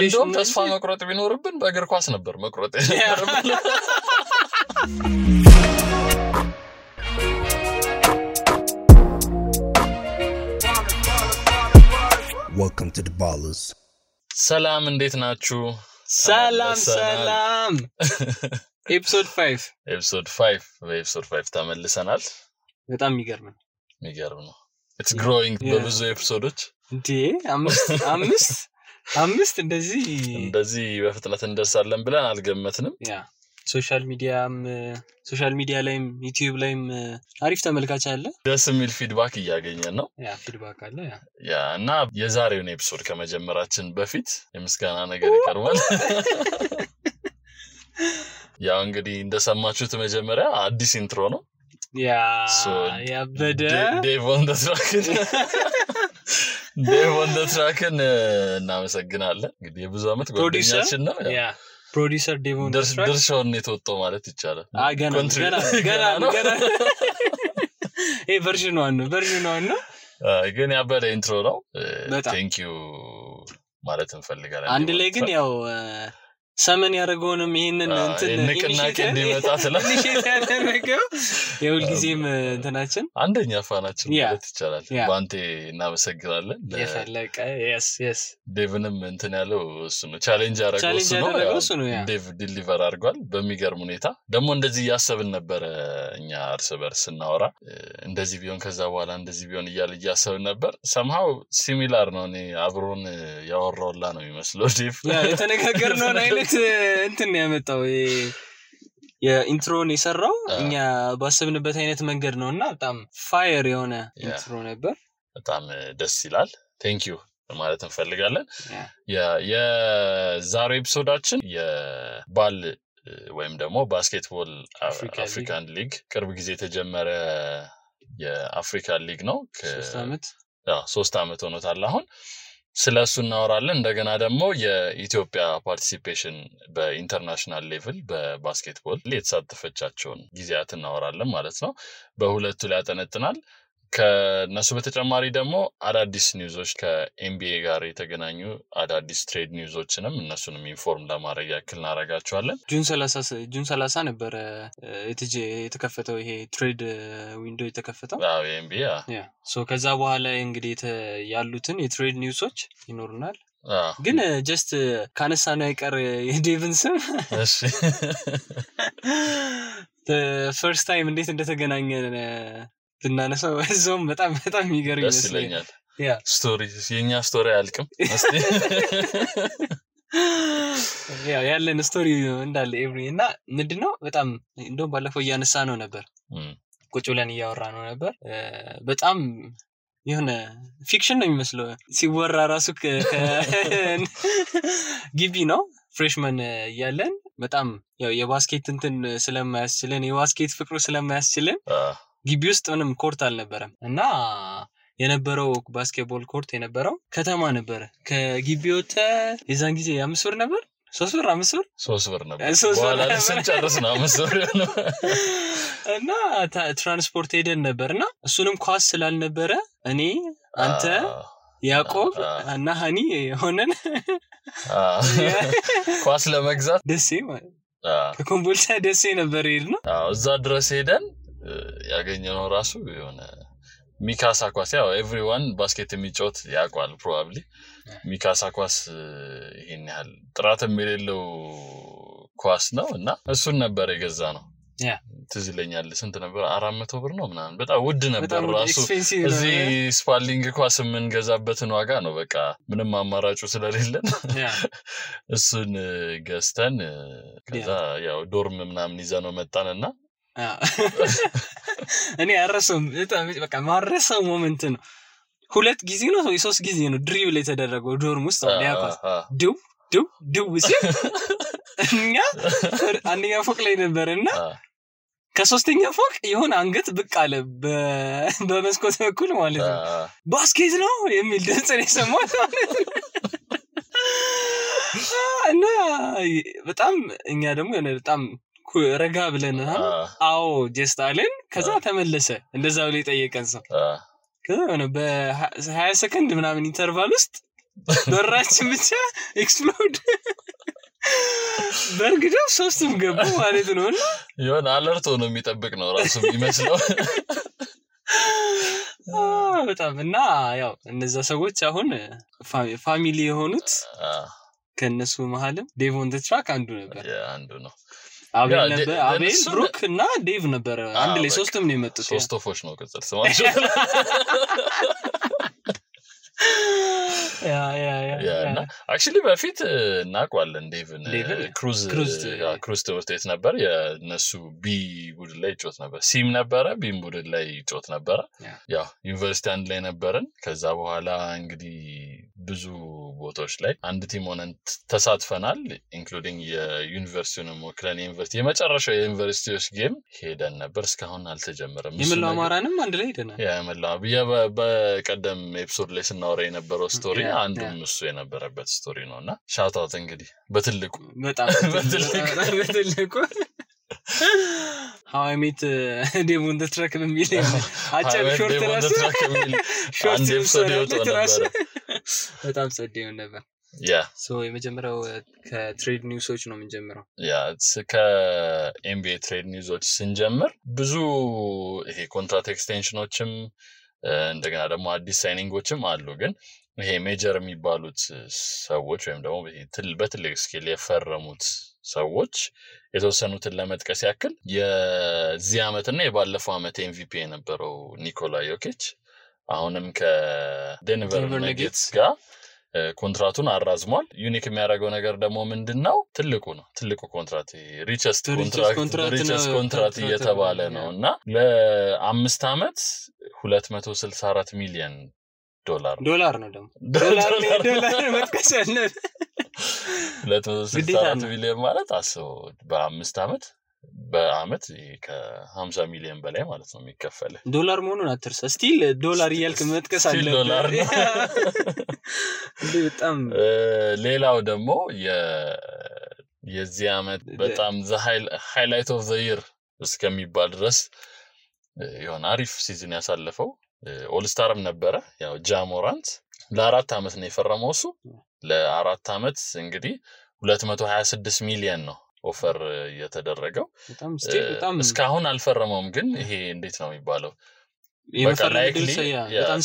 እንደውም ተስፋ መቁረጥ ቢኖርብን በእግር ኳስ ነበር መቁረጥ ያረብን Welcome to the Ballers. ሰላም እንዴት ናችሁ ሰላም episode 5 ተመልሰናል በጣም የሚገርም ነው it's growing በብዙ ኤፒሶዶች እንዴ አምስት እንደዚህ በፍጥነት እንደርሳለን ብለን አልገመትንም ያ ሶሻል ሚዲያ ላይም ዩቲዩብ ላይም አሪፍ ተመልካች አለ ደስ የሚል ፊድባክ እያገኘን ነው ያ ፊድባክ አለ ያ እና የዛሬውን ኤፒሶድ ከመጀመራችን በፊት የምስጋና ነገር ይቀርባል ያ እንግዲህ እንደሰማችሁት መጀመሪያ አዲስ ኢንትሮ ነው ያ በደ Dave on the track እናመሰግናለን እንግዲህ የብዙ አመት ጓደኛችን ነው ያ ፕሮዲዩሰር ዴቮን ድርሻውን የተወጣው ማለት ይቻላል ገና ቨርዥን 1 ነው ግን ያበደ ኢንትሮ ነው ቴንክ ዩ ማለት እንፈልጋለን አንድ ላይ ግን ያው ሰመን ያደረገውንም ይሄንን ንቅናቄ እንዲመጣ ስለዚህ ያደረገው የሁል ጊዜም እንትናችን አንደኛ ፋናችን ማለት ይቻላል ባንቴ እናመሰግናለን የፈለቀ yes ዴቭንም እንትን ያለው እሱ ነው ቻሌንጅ ያደረገው እሱ ነው ዴቭ ዲሊቨር አድርጓል በሚገርም ሁኔታ ደግሞ እንደዚህ ያሰብን ነበር እኛ እርስ በርስ እናወራ እንደዚህ ቢሆን ከዛ በኋላ እንደዚህ ቢሆን እያሰብን ነበር somehow similar ነው እኔ አብሮን ያወራውላ ነው የሚመስለው ዴቭ የተነጋገርነው አይነት እንትን ያመጣው የኢንትሮን የሰራው እኛ ባሰብንበት አይነት መንገድ ነውና በጣም ፋየር የሆነ ኢንትሮ ነበር በጣም ደስ ይላል ቴንክ ዩ ማለት እንፈልጋለን የዛሬው ኤፒሶዳችን የባል ወይም ደግሞ ባስኬትቦል አፍሪካን ሊግ ቅርብ ጊዜ የተጀመረ የአፍሪካን ሊግ ነው 3 አመት ሆኖታል አሁን ስለሱ እናወራለን እንደገና ደግሞ የኢትዮጵያ ፓርቲሲፔሽን በኢንተርናሽናል ሌቭል በባስኬትቦል የተሳተፈቻቸውን ጊዜያት እናወራለን ማለት ነው በሁለቱ ላይ ያጠነጥናል ከነሱ በተጨማሪ ደግሞ አዳዲስ ኒውዞች ከኤምቢኤ ጋር የተገናኙ አዳዲስ ትሬድ ኒውዞችንም እነሱንም ኢንፎርም ለማድረግ ያክል እናረጋቸዋለን ጁን 30 ነበር የተከፈተው ይሄ ትሬድ ዊንዶው የተከፈተው ኤምቢኤ ሶ ከዛ በኋላ እንግዲህ ያሉትን የትሬድ ኒውሶች ይኖሩናል ግን ጀስት ካነሳ ነው አይቀር የዴቭን ስም እሺ ፈርስት ታይም እንዴት እንደተገናኘን ብናነሳው እዛውም በጣም የሚገርም ይመስለኛል ስቶሪ የኛ ስቶሪ አልቅም እስቲ ያለን ስቶሪ እንዳለ ኤቭሪ እና ምንድነው በጣም እንደውም ባለፈው እያነሳ ነው ነበር ቁጭ ብለን እያወራ ነው ነበር በጣም የሆነ ፊክሽን ነው የሚመስለው ሲወራ ራሱ ግቢ ነው ፍሬሽማን ያለን በጣም ያው የባስኬት እንትን ስለማያስችለን የባስኬት ፍቅሩ ስለማያስችለን ግቢ ውስጥ ምንም ኮርት አልነበረም እና የነበረው ባስኬትቦል ኮርት የነበረው ከተማ ነበር ከግቢ ወጣ የዛን ጊዜ 5 ብር ነበር 3 ብር 5 ብር 3 ብር ነበር በኋላ ስንጨርስ ነው 5 ብር ነው እና ትራንስፖርት ሄደን ነበርና እሱንም ኳስ ስላልነበረ እኔ አንተ ያዕቆብ እና ሃኒ ሆነን ኳስ ለመግዛት ደሴ ማለት ከኮምቦልቻ ደሴ ነበር ሄድነው እዛ ድረስ ሄደን ያገኘነው ራሱ የሆነ ሚካሳ ኳስ ያው ኤቭሪዋን ባስኬት የሚጫወት ያውቃል ፕሮባብሊ ሚካሳ ኳስ ይሄን ያህል ጥራት የሌለው ኳስ ነው እና እሱን ነበር የገዛነው ያ ትዝለኛል ስንት ነበር 400 ብር ነው ምናምን በጣም ውድ ነበር ራሱ እዚህ ስፓሊንግ ኳስ የምንገዛበትን ዋጋ ነው በቃ ምንም አማራጩ ስለሌለን እሱን ገዝተን ከዛ ያው ዶርም ምናምን ይዘነው መጣንና እኔ አረሰም በቃ ማረሰው ሞመንት ነው ሁለት ጊዜ ነው 3 ጊዜ ነው ድሪብል የተደረገው ዶርም ውስጥ ያውቃል ዱ እኛ አንደኛ ፎቅ ላይ ነበርና ከሶስተኛ ፎቅ የሆነ አንገት ብቅ አለ በመስኮት በኩል ማለት ነው ባስኬት ነው የሚል ድምጽ ነው የሰማሁት እና በጣም እኛ ደግሞ በጣም ረጋ ብለን አዎ ጀስት አለን ከዛ ተመለሰ እንደዛው ላይ ጠየቀን ሰው ከዛ በ20 ሰከንድ ምናምን ኢንተርቫል ውስጥ በራችን ብቻ ኤክስፕሎድ በርግደው ሶስቱም ገቡ ማለት ነውና ይሆን አለርት ሆኖ የሚጠብቅ ነው ራሱ የሚመስለው በጣም እና ያው እነዛ ሰዎች አሁን ፋሚሊ የሆኑት ከነሱ መሐልም ዴቭ ኦን ዘ ትራክ አንዱ ነበር አንዱ ነው አቤል ብሩክ እና ዴቭ ነበር አንድ ላይ ሶስቱም ነው የመጡት ሶስቶፎች ነው ቅጽል ስማቸው እና actually በፊት እናቋለን ዴቭን ክሩዝ ትምህርት ቤት ነበር የነሱ ቢ ቡድን ላይ ጮት ነበር ሲም ነበረ ቢም ቡድን ላይ ጮት ነበረ ያው ዩኒቨርሲቲ አንድ ላይ ነበርን ከዛ በኋላ እንግዲህ ብዙ ቦታዎች ላይ አንድ ቲም ሆነን ተሳትፈናል ኢንክሉዲንግ የዩኒቨርሲቲውን ወክለን ዩኒቨርሲቲ የመጨረሻው የዩኒቨርሲቲዎች ጌም ሄደን ነበር እስካሁን አልተጀመረም የመላው አማራንም አንድ ላይ ሄደናል የመላው በቀደም ኤፒሶድ ላይ ስናወራ የነበረው ስቶሪ አንዱም እሱ የነበረበት ስቶሪ ነውና ሻውት አውት እንግዲህ በትልቁ በጣም በትልቁ How I Met Dave on the Track በሚል አጭር ሾርት አንድ ኤፒሶድ ነበር በጣም ጸደው ነበር ሶ የመጀመሪያው ከትሬድ ኒውሶች ነው የምንጀምረው ከኤምቢኤ ትሬድ ኒውሶች ስንጀምር ብዙ ይሄ ኮንትራክት ኤክስቴንሽኖችም እንደገና ደግሞ አዲስ ሳይኒንጎችም አሉ ግን ይሄ ሜጀር የሚባሉት ሰዎች ወይም ደግሞ በትልቅ ስኬል የፈረሙት ሰዎች የተወሰኑትን ለመጥቀስ ያክል የዚህ አመትና የባለፈው አመት ኤምቪፒ የነበረው ኒኮላ ዮኪች አሁንም ከዴንቨር ነጌትስ ጋር ኮንትራቱን አራዝሟል ዩኒክ የሚያደርገው ነገር ደግሞ ምንድነው ትልቁ ኮንትራክት ሪቸስት ኮንትራክት እየተባለ ነውና ለ5 አመት 264 ሚሊዮን ዶላር ነው ደግሞ ዶላር መጥቀስ ያለ 264 ሚሊዮን ማለት አስበው በአመት ከ50 ሚሊዮን በላይ ማለት ነው የሚከፈል ዶላር መሆኑን አትርሳ ስቲል ዶላር ይያልክ መጥቀስ አለ ዶላር በጣም ሌላው ደግሞ የዚህ አመት በጣም the highlight of the year እስከሚባል ድረስ ይሆን አሪፍ ሲዝን ያሳለፈው ኦል ስታርም ነበረ ያው ጃሞራንት ለ4 አመት ነው የፈረመው እሱ ለ4 አመት እንግዲህ 226 ሚሊዮን ነው ኦፈር የተደረገው በጣም እስካሁን አልፈረመውም ግን ይሄ እንዴት ነው የሚባለው በጣም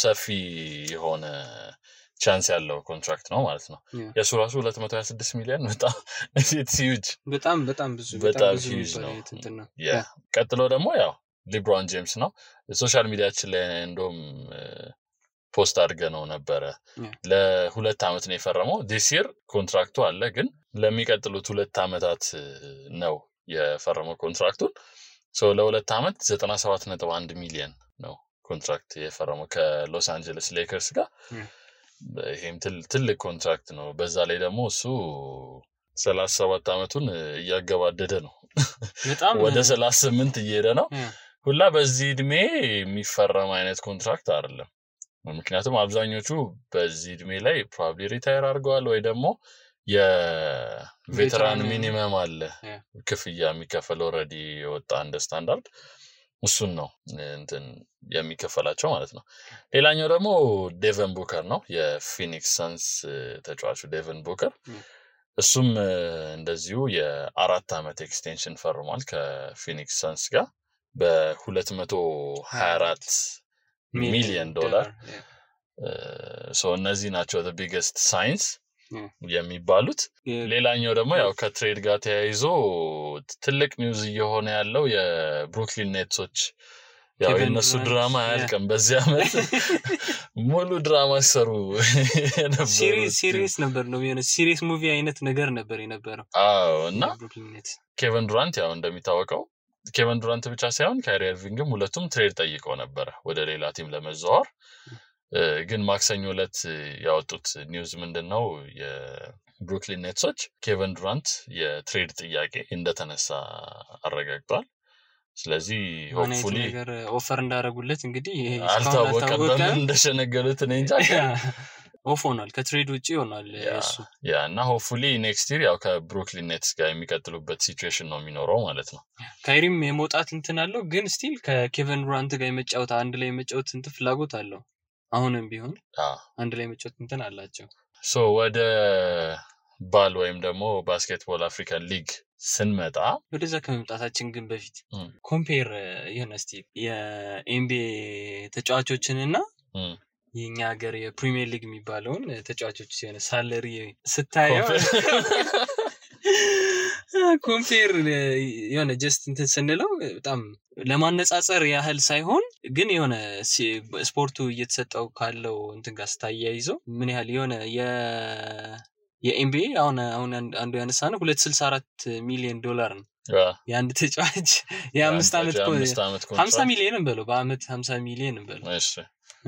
ሰፊ የሆነ ቻንስ ያለው ኮንትራክት ነው ማለት ነው የሱ ራሱ 226 ሚሊዮን በጣም it's huge በጣም ብዙ ነው ቀጥሎ ደግሞ ያው ሊብሮን ጄምስ ነው ሶሻል ሚዲያችን ላይ እንደውም ፖስት አድርገነው ነበረ ለ2 አመት ነው የፈረመው this year ኮንትራክቱ አለ ግን ለሚቀጥሉት 2 አመታት ነው የፈረመው ኮንትራክቱን ሶ ለ2 አመት 97.1 ሚሊዮን ነው ኮንትራክት የፈረመው ከሎስ አንጀለስ ሌከርስ ጋር ይሄም ትልቅ ኮንትራክት ነው በዛ ላይ ደግሞ እሱ 37 አመቱን እያገባደደ ነው በጣም ወደ 38 እየሄደ ነው ሁላ በዚህ እድሜ የሚፈረም አይነት ኮንትራክት አይደለም ምክንያቱም አብዛኞቹ በዚህ እድሜ ላይ probably ሪታየር አድርገዋል ወይ ደግሞ የቬተራን ሚኒመም አለ ክፍያ የሚከፈለው ኦሬዲ ወጣ እንደ ስታንዳርድ እሱን ነው እንትን የሚከፈላቸው ማለት ነው ሌላኛው ደግሞ ዴቨን ቡከር ነው የፊኒክስ ሳንስ ተጫዋቹ ዴቨን ቡከር እሱም እንደዚሁ የ4 አመት ኤክስቴንሽን ፈርሟል ከፊኒክስ ሳንስ ጋር በ224 ሚሊዮን ዶላር ሶ እነዚህ ናቸው the biggest signs የሚባሉት ሌላኛው ደግሞ ያው ከትሬድ ጋር ተያይዞ ትልቅ ኒውዝ እየሆነ ያለው የብሩክሊን ኔትሶች ያው የነሱ ድራማ ያልቀም በዚህ አመት ሙሉ ድራማ ሰሩ ሲሪየስ ነበር ነው የሆነ ሲሪየስ ሙቪ አይነት ነገር ነበር የነበረው እና ኬቨን ዱራንት ያው እንደሚታወቀው ኬቨን ዱራንት ብቻ ሳይሆን ካይሪ ኢርቪንግም ሁለቱም ትሬድ ጠይቀው ነበር ወደ ሌላ ቲም ለመዛወር ግን ማክሰኞ ዕለት ያወጡት ኒውዝ ምንድነው የብሩክሊን ኔትሶች ኬቨን ዱራንት የትሬድ ጥያቄ እንደተነሳ አረጋግጧል ስለዚህ ሆፕፉሊ ኦፈር እንዳረጉለት እንግዲህ አልታወቀም እንደሸነገሉት ነው እንጂ ኦፍ ሆኗል ከትሬድ ውጪ ሆኗል እሱ እና ሆፕፉሊ ኔክስት ይር ያው ከብሩክሊን ኔትስ ጋር የሚቀጥሉበት ሲቹዌሽን ነው የሚኖረው ማለት ነው ካይሪም የመውጣት እንትን አለው ግን ስቲል ከኬቨን ዱራንት ጋር የመጫወት አንድ ላይ የመጫወት እንትን ፍላጎት አለው አሁንም ቢሆን አንድ ላይ መጫወት እንትን አላቸው ሶ ወደ ባል ወይም ደግሞ ባስኬትቦል አፍሪካን ሊግ ስንመጣ ወደዛ ከመምጣታችን ግን በፊት ኮምፔር ይሁን እስቲ የኤንቢኤ ተጫዋቾችንና የኛ ሀገር የፕሪሚየር ሊግ የሚባለውን ተጫዋቾች ሲሆን ሳለሪ ስታየው ኮምፔር የሆነ ጀስት እንትን ስንለው በጣም ለማነጻጸር ያህል ሳይሆን ግን የሆነ ስፖርቱ እየተሰጠው ካለው እንትን ጋር ስታያይዘው ምን ያህል የሆነ የኤንቢኤ አሁን አንዱ ያነሳነው 264 ሚሊዮን ዶላር ነው የአንድ ተጫዋች የ5 አመት 50 ሚሊዮን እንበለው በአመት 50 ሚሊዮን እንበለው እሺ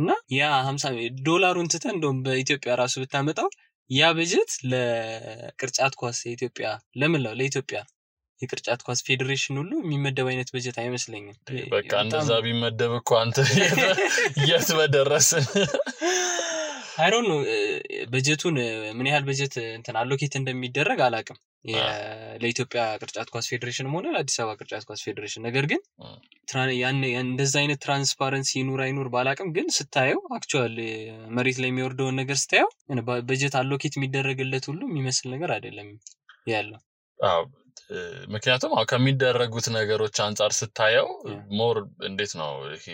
እና ያ 50 ዶላሩን ትተን እንደውም በኢትዮጵያ ራሱ ብታመጣው ያ በጀት ለቅርጫት ኳስ የኢትዮጵያ ለምንለው ለኢትዮጵያ የቅርጫት ኳስ ፌዴሬሽን ሁሉ የሚመደብ አይነት በጀት አይመስለኝም በቃ እንደዛ ቢመደብ እኮ አንተ የት በደረስን I don't know በጀቱን ምን ያህል በጀት እንትን አሎኬት እንደሚደረግ አላቅም ለኢትዮጵያ ቅርጫት ኳስ ፌዴሬሽን ሆነ ለአዲስ አበባ ቅርጫት ኳስ ፌዴሬሽን ነገር ግን እንደዛ አይነት ትራንስፓረንሲ ይኑር አይኑር ባላቅም ግን ስታየው አክቹአሊ መሬት ላይ የሚወርደው ነገር ስታየው በጀት አሎኬት የሚደረግለት ሁሉ የሚመስል ነገር አይደለም ያለው ምክንያቱም ከሚደረጉት ነገሮች አንፃር ስታየው ሞር እንዴት ነው ይሄ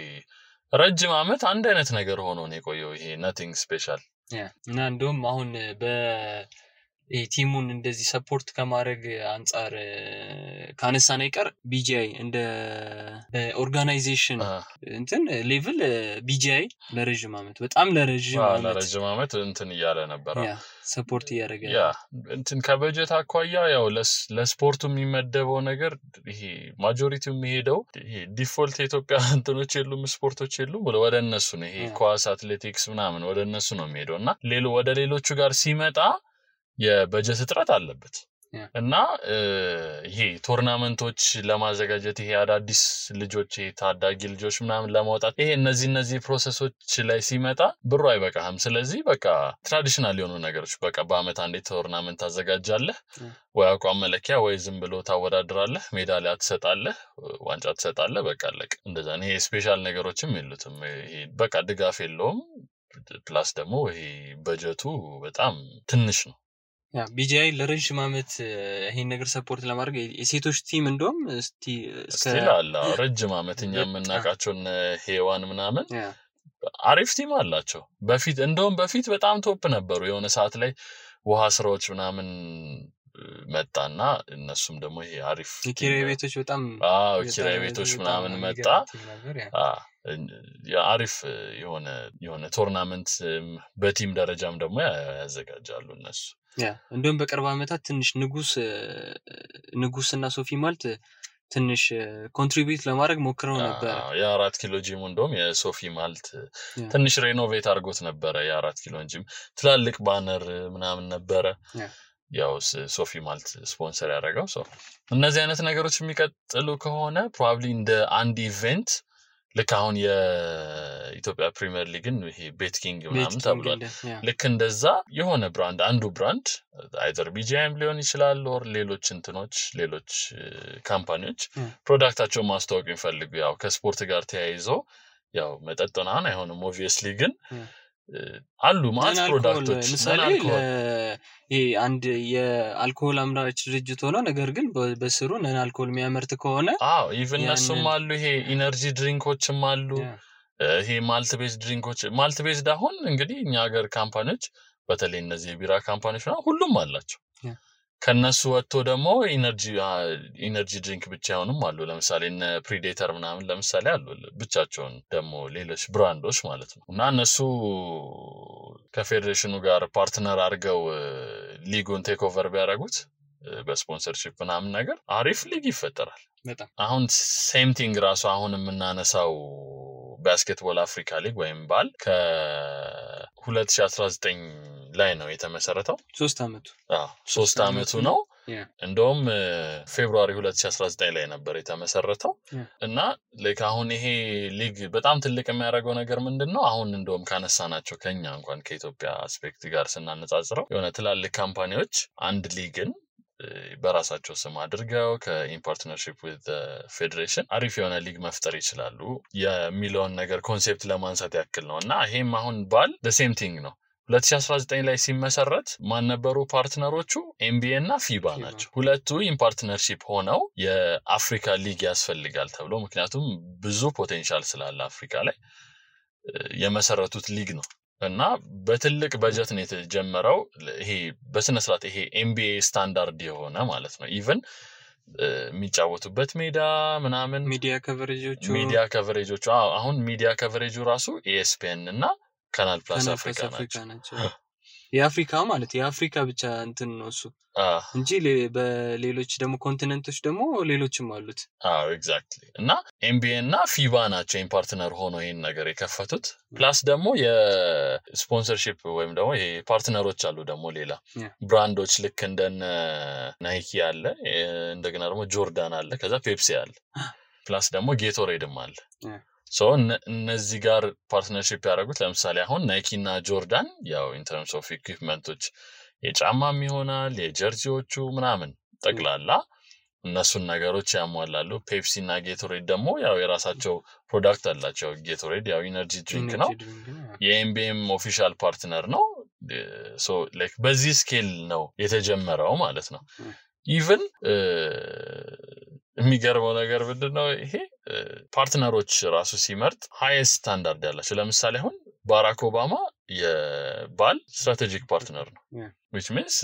ረጅም አመት አንድ አይነት ነገር ሆኖ ነው የቆየው ይሄ nothing special እና እንደውም አሁን ቲሙን እንደዚህ ሰፖርት ከማድረግ አንፃር ካነሳና ይቀር ቢጂአይ እንደ ኦርጋናይዜሽን እንትን ሌቭል ቢጂአይ ለረጅም አመት በጣም ለረጅም አመት እንትን ይያለ ነበር ሰፖርት ያደረገ እንትን ከበጀት አኳያ ያው ለስፖርቱ የሚመደበው ነገር ይሄ ማጆሪቲው የሚሄደው ይሄ ዲፎልት ኢትዮጵያ እንትኖች የሉም ስፖርቶች የሉም ወደ እነሱ ነው ይሄ ኳስ አትሌቲክስ ምናምን ወደ እነሱ ነው የሚሄደውና ወደ ሌሎቹ ጋር ሲመጣ የበጀት እጥረት አለበት እና ይሄ ቶርናመንቶች ለማዘጋጀት ይሄ አዳዲስ ልጆች ታዳጊ ልጆች ምናምን ለማውጣት ይሄ እነዚህ ፕሮሰሶች ላይ ሲመጣ ብሩ አይበቃም ስለዚህ በቃ ትራዲሽናል የሆኑ ነገሮች በቃ በአመት አንዴ ቶርናመንት ታዘጋጃለህ ወይ አቋም መለኪያ ወይ ዝም ብሎ ታወዳድራለህ ሜዳሊያ ትሰጣለህ ዋንጫ ትሰጣለህ በቃ አለቀ እንደዛ ነው ይሄ ስፔሻል ነገሮችም የሉትም ይሄ በቃ ድጋፍ የለውም ፕላስ ደግሞ ይሄ በጀቱ በጣም ትንሽ ነው ቢጂአይ ለረጅም አመት ይሄን ነገር ሰፖርት ለማድረግ የሴቶች ቲም እንደውም እስቲላላ ረጅም አመት እኛ የምናቃቸውን ሄዋን ምናምን አሪፍ ቲም አላቸው በፊት በጣም ቶፕ ነበሩ የሆነ ሰዓት ላይ ውሃ ስራዎች ምናምን መጣና እነሱም ደግሞ ይሄ አሪፍ ኪራይ ቤቶች በጣም ኪራይ ቤቶች ምናምን መጣ አሪፍ የሆነ ቶርናመንት በቲም ደረጃም ደግሞ ያዘጋጃሉ እነሱ እንደውም በቅርብ አመታት ትንሽ ንጉስና ሶፊ ማልት ትንሽ ኮንትሪቢዩት ለማድረግ ሞክረው ነበር የ4 ኪሎ ጂም እንደውም የሶፊ ማልት ትንሽ ሬኖቬት አድርጎት ነበር የ4 ኪሎ ጂም ትላልቅ ባነር ምናምን ነበር ያው ሶፊ ማልት ስፖንሰር ያደረገው እነዚህ አይነት ነገሮች የሚቀጥሉ ከሆነ ፕሮባብሊ እንደ አንድ ኢቨንት ልክ አሁን የኢትዮጵያ ፕሪሚየር ሊግን ይሄ ቤትኪንግ ምናምን ተብሏል ልክ እንደዛ የሆነ ብራንድ አንዱ ብራንድ አይዘር ቢጂአይም ሊሆን ይችላል ኦር ሌሎች ካምፓኒዎች ፕሮዳክታቸውን ማስተዋወቅ የሚፈልጉ ያው ከስፖርት ጋር ተያይዞ ያው መጠጥና አይሆንም ኦብቪየስሊ ግን አሉ ማለት ፕሮዳክቶች ለምሳሌ ይሄ አንድ የአልኮሆል አምራች ድርጅት ሆኖ ነገር ግን በስሩ ነን አልኮሆል የሚያመርት ከሆነ ኢቭን እነሱም አሉ ይሄ ኢነርጂ ድሪንኮችም አሉ ይሄ ማልት ቤዝድ አሁን እንግዲህ እኛ ሀገር ካምፓኒዎች በተለይ እነዚህ የቢራ ካምፓኒዎች ሁሉም አላቸው ከነሱ ወጥቶ ደግሞ ኢነርጂ ድሪንክ ብቻ ሆነም አሉ ለምሳሌ እነ ፕሪዴተር ምናምን ለምሳሌ አሉ ብቻቸውን ደግሞ ሌሎች ብራንዶች ማለት ነው እና እነሱ ከፌዴሬሽኑ ጋር ፓርትነር አድርገው ሊጉን ቴክ ኦቨር ቢያደርጉት በስፖንሰርሺፕ ምናምን ነገር አሪፍ ሊግ ይፈጠራል አሁን ሴም ቲንግ ራሱ አሁን የምናነሳው ባስኬትቦል አፍሪካ ሊግ ወይም ባል ከ2019 ላይ ነው የተመሰረተው 3 አመቱ ነው እንደውም ፌብሩዋሪ 2019 ላይ ነበር የተመሰረተው እና ላይክ አሁን ይሄ ሊግ በጣም ትልቅ የሚያደርገው ነገር ምንድነው አሁን እንደውም ካነሳናቸው ከኛ እንኳን ከኢትዮጵያ አስፔክት ጋር ስናነጻጽረው የሆነ ትላልቅ ካምፓኒዎች አንድ ሊግን በራሳቸው ስም አድርገው ከኢን ፓርትነርሺፕ with the federation አሪፍ የሆነ ሊግ መፍጠር ይችላሉ የሚለውን ነገር ኮንሴፕት ለማንሳት ያክል ነውና ይሄም አሁን ባል the same thing ነው 2019 ላይ ሲመሰረት ማን ነበሩ ፓርትነሮቹ NBA እና FIBA ናቸው ሁለቱ ኢን ፓርትነርሺፕ ሆነው የአፍሪካ ሊግ ያስፈልጋል ተብሎ ምክንያቱም ብዙ ፖቴንሻል ስላለ አፍሪካ ላይ የመሰረቱት ሊግ ነው እና በትልቅ በጀት ነው የተጀመረው ይሄ በስነ ስርዓት ይሄ NBA ስታንዳርድ የሆነ ማለት ነው ኢቭን የሚጫወቱበት ሜዳ ምናምን ሚዲያ ከቨሬጆቹ አሁን ሚዲያ ከቨሬጁ ራሱ ESPN እና ካናል ፕላስ አፍሪካ ናቸው የአፍሪካ ማለት የአፍሪካ ብቻ እንትን ነው እሱ እንጂ በሌሎች ደግሞ ኮንቲኔንቶች ደግሞ ሌሎችም አሉት ኤግዛክትሊ እና NBA እና FIBA ናቸው ኢን ፓርትነር ሆኖ ይሄን ነገር የከፈቱት ፕላስ ደግሞ የስፖንሰርሺፕ ወይም ደግሞ ይሄ ፓርትነሮች አሉ ደግሞ ሌላ ብራንዶች ልክ እንደነ ናይኪ አለ እንደገና ደግሞ ጆርዳን አለ ከዛ ፔፕሲ አለ ፕላስ ደግሞ ጌቶሬድም አለ ሶ እነዚህ ጋር ፓርትነርሺፕ ያደረጉት ለምሳሌ አሁን ናይኪ እና ጆርዳን ያው ኢን ተርምስ ኦፍ ኢኩዊፕመንቶች የጫማም ይሆናል የጀርሲዎቹ ምናምን ጠቅላላ እነሱን ነገሮች ያሟላሉ ፔፕሲ እና ጌቶሬድ ደግሞ ያው የራሳቸው ፕሮዳክት አላቸው ጌቶሬድ ያው ኢነርጂ ድሪንክ ነው የኤምቢኤም ኦፊሻል ፓርትነር ነው ሶ ላይክ በዚህ ስኬል ነው የተጀመረው ማለት ነው ኢቭን የሚገርመው ነገር ምንድነው ይሄ ፓርትነሮች ራሱ ሲመርጥ ሃይስት ስታንዳርድ ያላቸው ለምሳሌ አሁን ባራክ ኦባማ የባል ስትራቴጂክ ፓርትነር ነው which means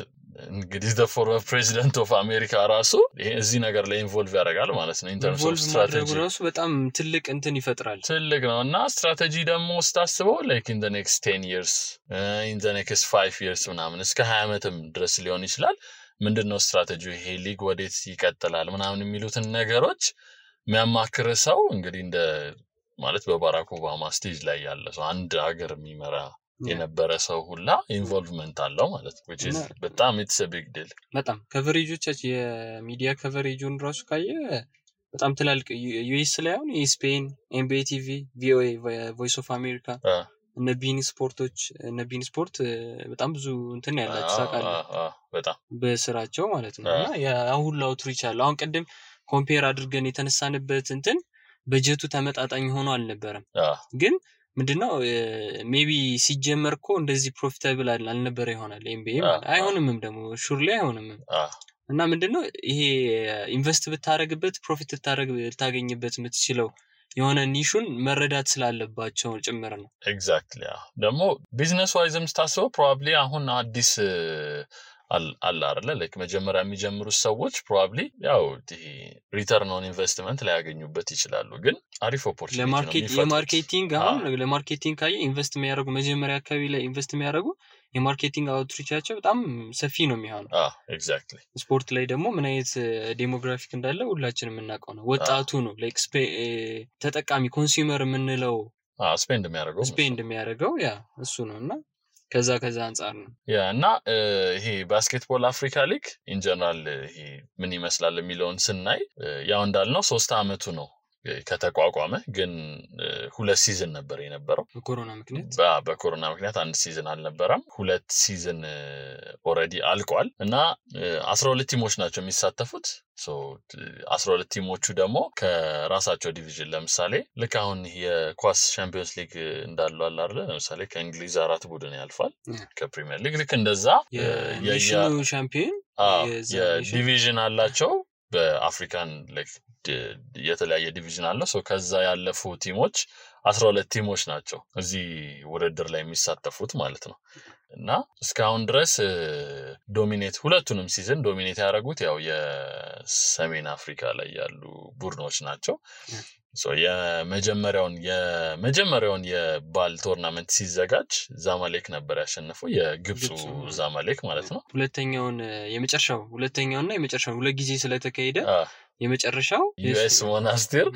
እንግዲህ the former president of America ራሱ ይሄ እዚህ ነገር ላይ ኢንቮልቭ ያደርጋል ማለት ነው in terms of strategy ራሱ በጣም ትልቅ እንትን ይፈጥራል ትልቅ ነውና ስትራቴጂ ደግሞ ስታስበው like in the next 10 years in the next 5 years ምናምን እስከ 20 ዓመትም ድረስ ሊሆን ይችላል ምንድነው ስትራቴጂው ይሄ ሊግ ወዴት ይቀጥላል ምናምን የሚሉትን ነገሮች የሚያማክር ሰው እንግዲህ እንደ ማለት በባራክ ኦባማ ስቴጅ ላይ ያለ ሰው አንድ ሀገር የሚመራ የነበረ ሰው ሁላ ኢንቮልቭመንት አለው ማለት ነው which is በጣም it's a big deal በጣም ከቨሬጆቻችን የሚዲያ ከቨሬጁን ራሱ ካየ በጣም ትላልቅ ዩኤስ ላይ አሁን ESPN NBA TV VOA Voice of America እነ ቢን ስፖርት በጣም ብዙ እንትን ያላችሁ ታውቃለህ በጣም በስራቸው ማለት ነው እና ያሁን አውትሪች አለ አሁን ቀደም ኮምፔር አድርገን የተነሳንበት እንትን በጀቱ ተመጣጣኝ ሆኖ አልነበረም ግን ምንድነው ሜቢ ሲጀመርኮ እንደዚህ ፕሮፊታብል አልነበረ ይሆናል NBA ማለት አይሆንምም ደግሞ ሹርሊ አይሆንም እና ምንድነው ይሄ ኢንቨስት ብታረግበት ፕሮፊት ታገኝበት የምትችለው የሆነ ኒሹን መረዳት ስላለባቸው ጭምር ነው ኤግዛክትሊ ደግሞ ቢዝነስ ዋይዝም ስታስበው ፕሮባብሊ አሁን አዲስ አለ አይደለ ላይክ መጀመሪያ የሚጀምሩ ሰዎች ፕሮባብሊ ያው ሪተርን ኦን ኢንቨስትመንት ላይ ያገኙበት ይችላሉ ግን አሪፍ ኦፖርቹኒቲ ነው ለማርኬቲንግ ካየ ኢንቨስት የሚያደርጉ መጀመሪያ አካባቢ ላይ ኢንቨስት የሚያደርጉ የማርኬቲንግ አውትሪቻቸው በጣም ሰፊ ነው የሚሆነው ኤግዛክትሊ ስፖርት ላይ ደግሞ ምን አይነት ዴሞግራፊክ እንዳለ ሁላችንም እናውቀው ነው ወጣቱ ነው ላይክ ተጠቃሚ ኮንሱመር የምንለው ስፔንድ የሚያደርገው ያ እሱ ነውና ከዛ አንፃር ነው ያ እና ይሄ ባስኬትቦል አፍሪካ ሊግ ኢን ጀነራል ይሄ ምን ይመስላል የሚለውን ስናይ ያው እንዳልነው 3 አመቱ ነው ከተቋቋመ ግን 2 ሲዝን ነበር የነበረው በኮሮና ምክንያት አንድ ሲዝን አልነበረም 2 ሲዝን ኦሬዲ አልቋል እና 12 ቲሞች ናቸው የሚሳተፉት ሶ 12 ቲሞቹ ደግሞ ከራሳቸው ዲቪዥን ለምሳሌ ልክ አሁን የኳስ ቻምፒየንስ ሊግ እንዳለው አለ አይደል ለምሳሌ ከእንግሊዝ 4 ቡድን ያልፋል ከፕሪሚየር ሊግ ልክ እንደዛ የኔሽኑ ቻምፒየን የዲቪዥን አላቸው በአፍሪካን ላይክ የተለያየ ዲቪዥን አለ ሶ ከዛ ያለፉ ቲሞች 12 ቲሞች ናቸው እዚህ ውድድር ላይ የሚሳተፉት ማለት ነው እና እስካሁን ድረስ ዶሚኔት ሁለቱንም ሲዝን ዶሚኔት ያደረጉት ያው የሰሜን አፍሪካ ላይ ያሉ ቡድኖች ናቸው ሶ የመጀመሪያውን የባል ቶርናመንት ሲዘጋጅ ዛማሌክ ነበር ያሸነፈው የግብፁ ዛማሌክ ማለት ነው ሁለተኛውና የመጨረሻው ሁለት ጊዜ ስለተካሄደ የመጨረሻው ዩኤስ ሞናስቲር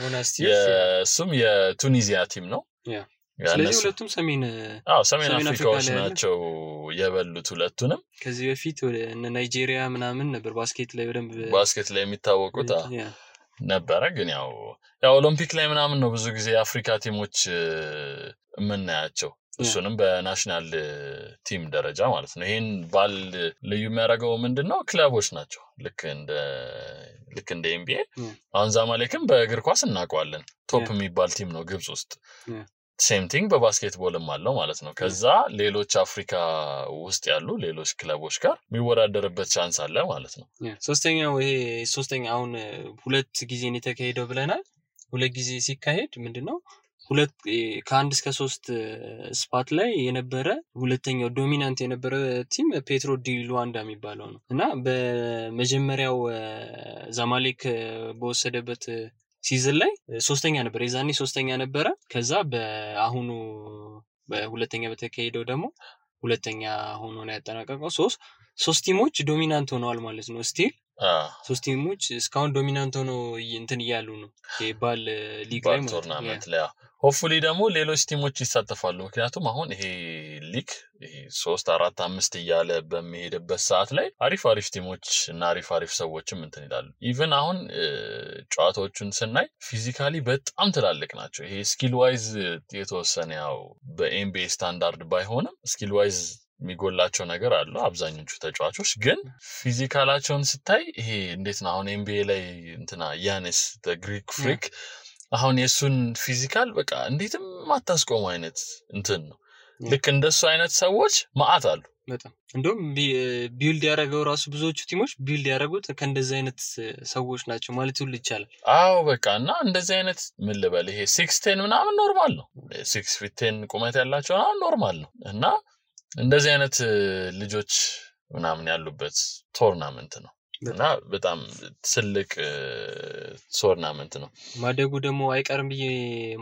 የሱም የቱኒዚያ ቲም ነው ስለዚህ ሁለቱም ሰሜን አፍሪካዎች ናቸው የበሉት ሁለቱንም ከዚህ በፊት ወደ ናይጄሪያ ምናምን ነበር ባስኬት ላይ የሚታወቁት ነበረ ግን ያው ኦሎምፒክ ላይ ምናምን ነው ብዙ ጊዜ አፍሪካ ቲሞች የምናያቸው እሱንም በናሽናል ቲም ደረጃ ማለት ነው ይሄን ባል ልዩ የሚያደርገው ምንድነው ክለቦች ናቸው ልክ እንደ NBA አሁን ዛማሌክም በእግር ኳስ እናውቀዋለን ቶፕ የሚባል ቲም ነው ግብጽ ውስጥ ሴም ቲንግ በባስኬትቦልም አለው ማለት ነው ከዛ ሌሎች አፍሪካ ውስጥ ያሉ ሌሎች ክለቦች ጋር የሚወዳደርበት ቻንስ አለ ማለት ነው ሶስተኛ አሁን ሁለት ጊዜ ነው የተካሄደው ብለናል ሁለት ጊዜ ሲካሄድ ምንድነው ሁለት ከአንድ እስከ 3 ስፓት ላይ የነበረ ሁለተኛው ዶሚናንት የነበረ ቲም ፔትሮ ዲ ሉዋንዳ የሚባለው ነው እና በመጀመሪያው ዛማሌክ በወሰደበት ሲዝን ላይ ሶስተኛ ነበር የዛኔ ሶስተኛ ነበረ ከዛ በአሁኑ በሁለተኛ በተካሄደው ደግሞ ሁለተኛ ሆኖ ነው ያጠናቀቀው ሶስት ቲሞች ዶሚናንት ሆነዋል ማለት ነው ስቲል ሶስት ቲሞች እስካሁን ዶሚናንት ሆኖ እንትን ይያሉ ነው የባል ሊግ ላይ ቶርናመንት ላይ ሆፕፉሊ ደግሞ ሌሎች ቲሞች ይሳተፋሉ ምክንያቱም አሁን ይሄ ሊግ 3 4 5 እያለ በሚሄድበት ሰዓት ላይ አሪፍ ቲሞች እና አሪፍ ሰዎችም እንትን ይላሉ ኢቭን አሁን ጨዋታዎቹን ስናይ ፊዚካሊ በጣም ትላልቅ ናቸው ይሄ ስኪል ዋይዝ የተወሰነ ያው በኤምቢኤ ስታንዳርድ ባይሆንም ስኪል ዋይዝ የሚጎላቸው ነገር አለ አብዛኞቹ ተጫዋቾች ግን ፊዚካላቸውን ስታይ ይሄ እንዴት ነው አሁን ኤምቢኤ ላይ እንትና ያኔስ the Greek freak አሁን የሱን ፊዚካል በቃ እንዴትም ማታስቆም አይነት እንትን ነው ልክ እንደሱ አይነት ሰዎች ማአት አሉ በጣም እንደውም ቢልድ ያደረገው ራሱ ብዙዎቹ ቲሞች ቢልድ ያደረጉት ከእንደዚህ አይነት ሰዎች ናቸው ማለት ሁሉ ይቻላል አዎ በቃና እንደዚህ አይነት ምን ልበል ይሄ 6'10 ምናምን ኖርማል ነው 6'10 ቁመት ያላቸው ኖርማል ነው እና እንደዚህ አይነት ልጆች ምናምን ያሉበት ቶርናመንት ነው እና በጣም ትልቅ ቶርናመንት ነው ማደጉ ደግሞ አይቀርም ብዬ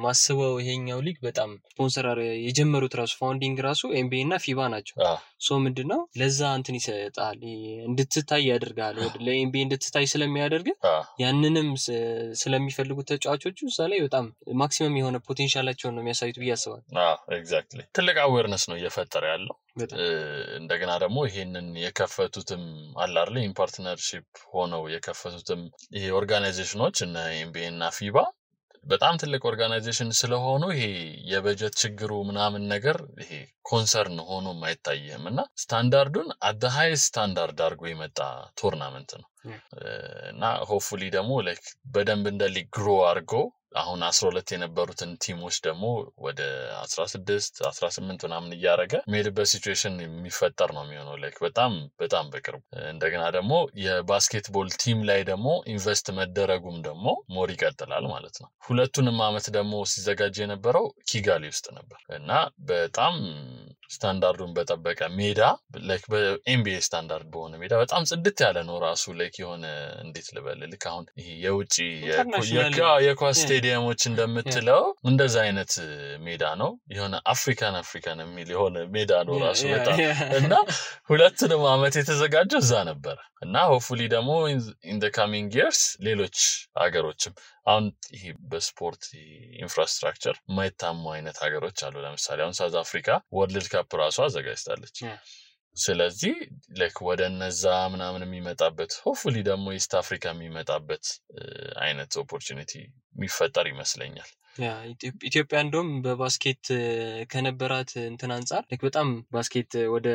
ማስበው ይሄኛው ሊግ በጣም ስፖንሰር የጀመሩት ራሱ ፋውንዲንግ ራሱ ኤምቢኤ እና ፊባ ናቸው ሶ ምንድነው ለዛ እንትን ይሰጣል እንድትታይ ያደርጋል ለኤምቢኤ እንድትታይ ስለሚያደርግ ያንንም ስለሚፈልጉት ተጫዋቾቹ እዛ ላይ በጣም ማክሲመም የሆነ ፖቴንሻላቸውን ነው የሚያሳዩት ብዬ አስባለሁ ኤግዛክትሊ ትልቅ አዌርነስ ነው እየፈጠረ ያለው እንደገና ደግሞ ይሄንን የከፈቱትም አላርለ ኢምፓርትነርሺፕ ሆነው የከፈቱትም ይሄ ኦርጋናይዜሽኖች እና ኤምቢኤ እና ፊባ በጣም ትልቅ ኦርጋናይዜሽን ስለሆኑ ይሄ የበጀት ችግሩ ምናምን ነገር ይሄ ኮንሰርን ሆኖ ማይታየም እና ስታንዳርዱን at the highest ስታንዳርድ አድርጎ የመጣ ቶርናመንት ነው እና ሆፕፉሊ ደግሞ ላይክ በደንብ እንደ ሊግ ግሮ አድርጎ አሁን 12 የነበሩትን ቲሞች ደግሞ ወደ 16 18 ምናምን እያረገ ሜድበት ሲቹዌሽን የሚፈጠር ነው የሚሆነው ላይክ በጣም በቅርቡ እንደገና ደግሞ የባስኬትቦል ቲም ላይ ደግሞ ኢንቨስት መደረጉም ደግሞ ሞር ይቀጥላል ማለት ነው ሁለቱንም አመት ደግሞ ሲዘጋጅ የነበረው ኪጋሊ ውስጥ ነበር እና በጣም ስታንዳርዱን በጠበቀ ሜዳ ላይክ በኤምቢኤ ስታንዳርድ በሆነ ሜዳ በጣም ጽድት ያለ ነው ራሱ ላይክ የሆነ እንዴት ልበል ልክ አሁን ይሄ የውጪ የኳስ ስቴዲየሞች እንደምትለው እንደዛ አይነት ሜዳ ነው የሆነ አፍሪካን የሚል የሆነ ሜዳ ነው ራሱ በጣም እና ሁለቱንም አመት የተዘጋጀው እዛ ነበር እና ሆፕፉሊ ደግሞ in the coming years ሌሎች ሀገሮችም አሁን ይሄ በስፖርት ኢንፍራስትራክቸር ማይታሙ አይነት ሀገሮች አሉ ለምሳሌ አሁን ሳውዝ አፍሪካ ወርልድ ካፕ ራሱ አዘጋጅታለች ስለዚህ ላይክ ወደ እነዛ ምናምን የሚመጣበት ሆፕፉሊ ደግሞ ኢስት አፍሪካ የሚመጣበት አይነት ኦፖርቹኒቲ የሚፈጠር ይመስለኛል ኢትዮጵያ እንደውም በባስኬት ከነበራት እንትን አንፃር በጣም ባስኬት ወደ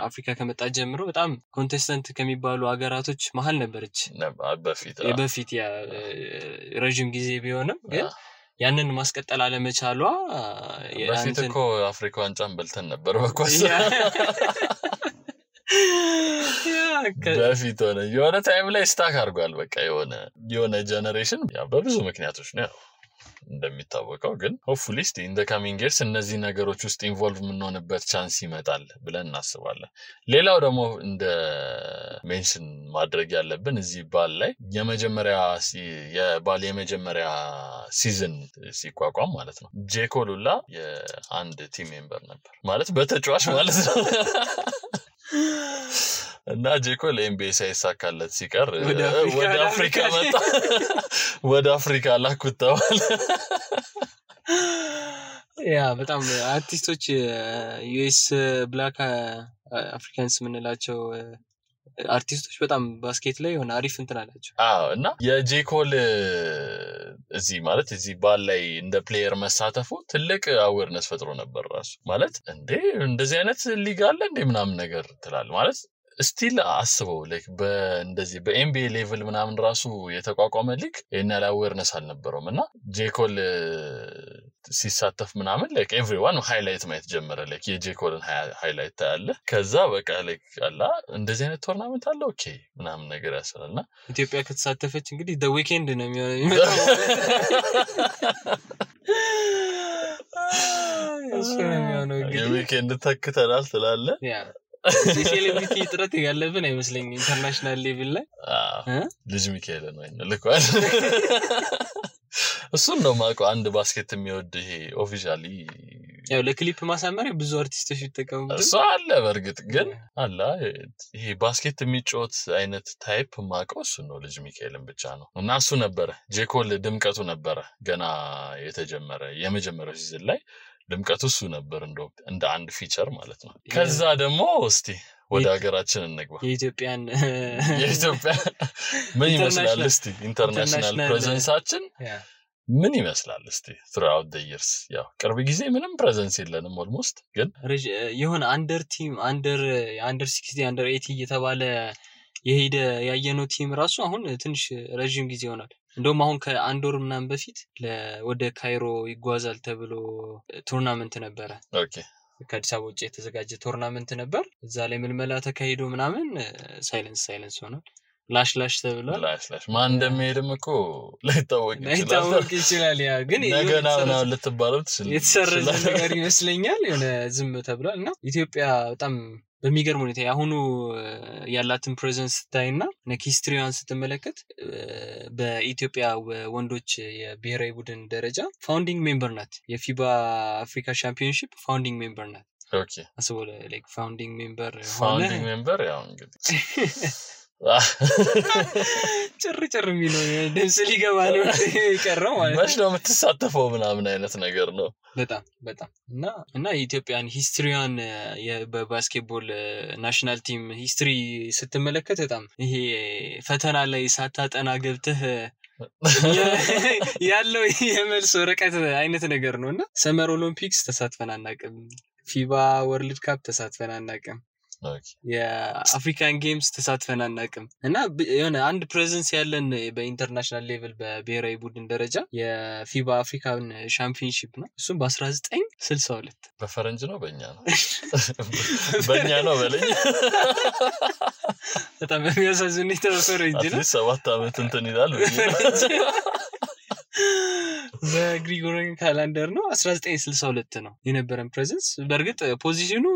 አፍሪካ ከመጣ ጀምሮ በጣም ኮንቴስተንት ከሚባሉ ሀገራቶች መሃል ነበረች በፊት ያ ረጅም ጊዜ ቢሆንም ግን ያንን ማስቀጠል አለመቻሏ በፊት እኮ አፍሪካ ዋንጫን በልተን ነበር በኳስ በፊት ሆነ የሆነ ታይም ላይ ስታክ አድርጓል በቃ የሆነ ጀነሬሽን በብዙ ምክንያቶች ነው እንደሚታወቀው ግን ሆፕፉሊ in the coming years እነዚህ ነገሮች ውስጥ ኢንቮልቭ ምንሆንበት ቻንስ ይመጣል ብለን እናስባለን ሌላው ደግሞ እንደ ሜንሽን ማድረግ ያለብን እዚህ ባል ላይ የመጀመሪያ ሲዝን ሲቋቋም ማለት ነው ጄኮሉላ የአንድ ቲም ሜምበር ነበር ማለት በተጫዋች ማለት ነው እና ጄኮል ኤምቢኤ ሳይሳካለት ሲቀር ወደ አፍሪካ መጣ ወደ አፍሪካ ላኩታዋል ያ በጣም አርቲስቶች ዩኤስ ብላክ አፍሪካንስ ምንላቸው አርቲስቶች በጣም ባስኬት ላይ ሆነ አሪፍ እንትን አላቸው እና የጄኮል እዚህ ማለት እዚህ ባል ላይ እንደ ፕሌየር መሳተፉ ትልቅ አዌርነስ ፈጥሮ ነበር ራሱ ማለት እንዴ እንደዚህ አይነት ሊግ አለ እንዴ ምናምን ነገር ትላል ማለት ስቲል አስበው ላይክ በእንደዚህ በኤምቢኤ ሌቭል ምናምን ራሱ የተቋቋመ ሊግ እና አዌርነስ አልነበረውም እና ጄኮል ሲሳተፍ ምናምን ላይክ ኤቭሪዋን ሃይላይት ማየት ጀመረ ላይክ የጄኮልን ሃይላይት ታያለ ከዛ በቃ ላይክ አላ እንደዚህ አይነት ቶርናመንት አለ ኦኬ ምናምን ነገር ያሰራልና ኢትዮጵያ ከተሳተፈች እንግዲህ the weekend ነው የሚመጣው የዊኬንድ ተክተናል ትላለ ሴሌብሪቲ ጥረት ያለብን አይመስለኝም ኢንተርናሽናል ሌቭል ላይ ልጅ ሚካኤል ነው ልኳል እሱን ነው ማቆ አንድ ባስኬት የሚወድ ይሄ ኦፊሻሊ ያው ለክሊፕ ማሳመሪያ ብዙ አርቲስቶች ይተቀሙበት እሱ አለ በርግጥ ግን አላ ይሄ ባስኬት የሚጫወት አይነት ታይፕ ማቆ እሱ ነው ልጅ ሚካኤልን ብቻ ነው እና እሱ ነበር ጄኮል ድምቀቱ ነበር ገና የተጀመረ የመጀመሪያው ሲዝን ላይ ድምቀቱ እሱ ነበር እንደ አንድ ፊቸር ማለት ነው ከዛ ደግሞ እስቲ ወደ ሀገራችን እንግባ የኢትዮጵያ ምን ይመስላል እስቲ ኢንተርናሽናል ፕሬዘንሳችን ምን ይመስላል እስቲ throughout the years ያው ቅርብ ጊዜ ምንም ፕሬዘንስ የለንም ኦልሞስት ግን የሆነ አንደር ቲም አንደር 60 አንደር 80 እየተባለ የሄደ ያየነው ቲም ራሱ አሁን ትንሽ ረጅም ጊዜ ሆኗል እንደውም አሁን ከአንድ ወር ምናምን በፊት ወደ ካይሮ ይጓዛል ተብሎ ቱርናመንት ነበር ኦኬ ከአዲስ አበባ ውጪ የተዘጋጀ ቱርናመንት ነበር እዛ ላይ ምልመላ ተካሂዶ ምናምን ሳይለንስ ሆኗል ላሽ ተብሏል ላሽ ማን እንደሚሄድም እኮ ላይታወቅ ይችላል ያ ግን ነገና ነው ልትባለው ትችላለህ የተሰረዘ ነገር ይመስለኛል የሆነ ዝም ተብሏልና ኢትዮጵያ በጣም በሚገርም ሁኔታ ያሁኑ ያላትን ፕሬዘንስ ታይና ሂስትሪዋን ስትመለከት በኢትዮጵያ ወንዶች የብሔራዊ ቡድን ደረጃ ፋውንዲንግ ሜምበር ናት የፊባ አፍሪካ ቻምፒዮንሺፕ ፋውንዲንግ ሜምበር ናት ኦኬ አስቦ ላይክ ፋውንዲንግ ሜምበር ያው እንግዲህ ጭር የሚለው ደስ ሊገባ ነው ይቀርው ማለት ነው ነው የምትሳተፈው ምናምን አይነት ነገር ነው በጣም እና የኢትዮጵያን ሂስትሪዋን በባስኬትቦል ናሽናል ቲም ሂስትሪ ስትመለከት በጣም ይሄ ፈተና ላይ ሳታጠና ገብተህ ያለው የመልስ ወረቀት አይነት ነገር ነውና ሰመር ኦሎምፒክስ ተሳትፈን አናውቅም ፊባ ወርልድ ካፕ ተሳትፈን አናውቅም የአፍሪካን ጌምስ ተሳትፈን አናውቅም እና የሆነ አንድ ፕሬዘንስ ያለን በኢንተርናሽናል ሌቭል በብሔራዊ ቡድን ደረጃ የፊባ አፍሪካን ቻምፒዮንሺፕ ነው እሱም በ1962 በፈረንጅ ነው በእኛ ነው በለኝ በጣም የሚያሳዝን ፈረንጅ ነው 7 አመት እንትን ይላል በግሪጎሪያን ካላንደር ነው 1962 ነው የነበረን ፕሬዘንስ በርግጥ ፖዚሽኑ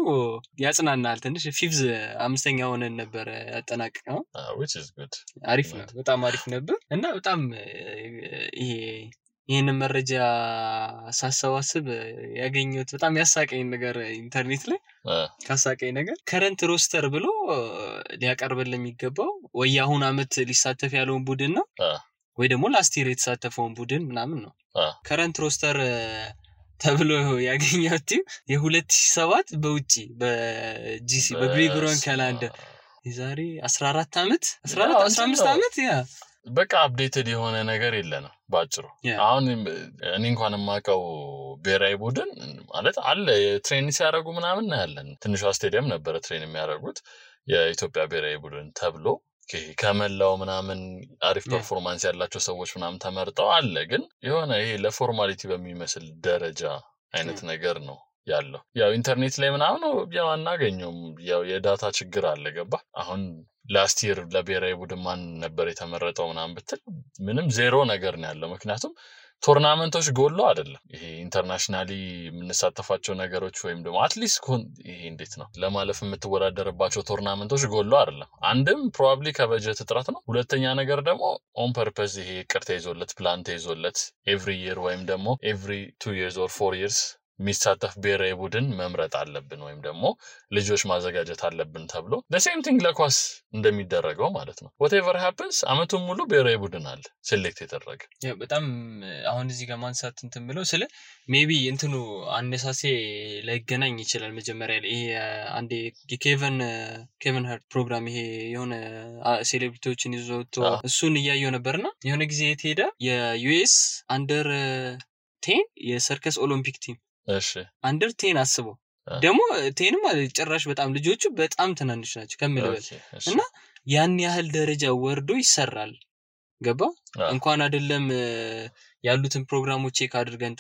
ያጽናናል ትንሽ ፊፍዝ 5ኛ ሆነን ነበር ያጠናቀቀው which is good አሪፍ ነው በጣም አሪፍ ነበር እና በጣም ይሄን መረጃ ሳሰባስብ ያገኘሁት በጣም ያሳቀኝ ነገር ኢንተርኔት ላይ ካሳቀኝ ነገር ከረንት ሮስተር ብሎ ሊያቀርብልን የሚገባው ወይ አሁን አመት ሊሳተፍ ያለውን ቡድን ነው ወይ ደግሞ ላስት ይር የተሳተፈውን ቡድን ምናምን ነው ከረንት ሮስተር ተብሎ ያገኘሁት የ2007 በውጪ በጂሲ በግሪጎሪያን ካላንደር የዛሬ 14 አመት 15 አመት ያ በቃ አፕዴትድ የሆነ ነገር የለንም ባጭሩ አሁን እኔ እንኳን ማቀው ብሔራዊ ቡድን ማለት አለ ትሬኒንግ ሲያደርጉ ምናምን ያለን ትንሽ ስቴዲየም ነበር ትሬኒንግ የሚያደርጉት የኢትዮጵያ ብሔራዊ ቡድን ተብሎ ከመላው ምናምን አሪፍ ፐርፎርማንስ ያላቸው ሰዎች ምናምን ተመርጠው አለ ግን የሆነ ይሄ ለፎርማሊቲ በሚመስል ደረጃ አይነት ነገር ነው ያለው ያው ኢንተርኔት ላይ ምናምን ያው አናገኘውም ያው የዳታ ችግር አለ ገባ አሁን ላስት ይር ለብሔራዊ ቡድን ማን ነበር የተመረጠው ምናምን ብትል ምንም ዜሮ ነገር ነው ያለው ምክንያቱም ቶርናመንቶች ጎሎ አይደለም ይሄ ኢንተርናሽናሊ የምንሳተፋቸው ነገሮች ወይም ደግሞ አትሊስት ይሄ እንዴት ነው ለማለፍ የምትወዳደርባቸው ቶርናመንቶች ጎሎ አይደለም አንድም ፕሮባብሊ ከበጀት እጥረት ነው ሁለተኛ ነገር ደግሞ ኦን ፐርፐዝ ይሄ ቅርታ ይዞለት ፕላን ተይዞለት ኤቭሪ ይር ወይም ደግሞ ኤቭሪ 2 years or 4 years የሚሳተፍ ብሔራዊ ቡድን መምረጥ አለብን ወይም ደግሞ ልጆች ማዘጋጀት አለብን ተብሎ the same thing ለኳስ እንደሚደረገው ማለት ነው whatever happens አመቱን ሙሉ ብሔራዊ ቡድን አለ ሴሌክት የተደረገ በጣም አሁን እዚህ ጋር ማንሳት እንትን ብለው ስለ ሜቢ እንትኑ አነሳሴ ላይገናኝ ይችላል መጀመሪያ ላይ ይሄ አንዴ ኬቨን ሃርት ፕሮግራም ይሄ የሆነ ሴሌብሪቲዎችን ይዞት እሱን ያያየው ነበርና የሆነ ጊዜ የተሄደ የዩኤስ አንደር 10 የሰርከስ ኦሎምፒክ ቲም እሺ አንደር 10 አስበው ደግሞ 10 ማለት ጭራሽ በጣም ልጆቹ በጣም ትናንሽ ናቸው ከመለበል እና ያን ያህል ደረጃ ወርዶ ይሰራል ገባ እንኳን አይደለም ያሉትን ፕሮግራሞች ቼክ አድርገን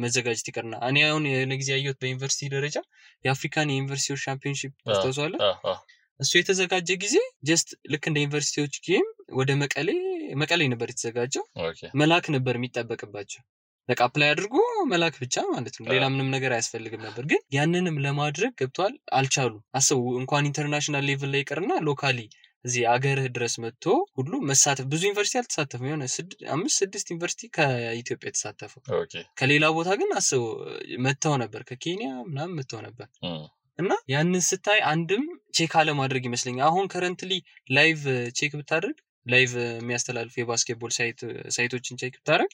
መዘጋጀት ይቀርና እኔ አሁን ለጊዜ ያየሁት በዩኒቨርሲቲ ደረጃ የአፍሪካን ዩኒቨርሲቲ ቻምፒዮንሺፕ አስተዋጽኦ እሱ የተዘጋጀ ጊዜ ጀስት ልክ እንደ ዩኒቨርሲቲዎች ጌም ወደ መቀሌ ነበር የተዘጋጀው መላክ ነበር የሚጠበቅባቸው በቃ አፕላይ አድርጎ መላክ ብቻ ማለት ነው ሌላ ምንም ነገር አያስፈልግም ነበር ግን ያንንም ለማድረግ ገብቷል አልቻሉ አስቡ እንኳን ኢንተርናሽናል ሌቭል ላይ ይቀርና ሎካሊ እዚህ አገር ድረስ መጥቶ ሁሉ መሳተፍ ብዙ ዩኒቨርሲቲ አልተሳተፈም የሆነ 5-6 ዩኒቨርሲቲ ከኢትዮጵያ ተሳተፈው ከሌላ ቦታ ግን አስቡ መተው ነበር ከኬንያ ምናምን መተው ነበር እና ያንን ስታይ አንድም ቼክ አለ ማድረግ ይመስለኛል አሁን ከረንትሊ ላይቭ ቼክ ብታደርግ ላይቭ የሚያስተላልፍ የባስኬትቦል ሳይቶችን ቼክ ብታደርግ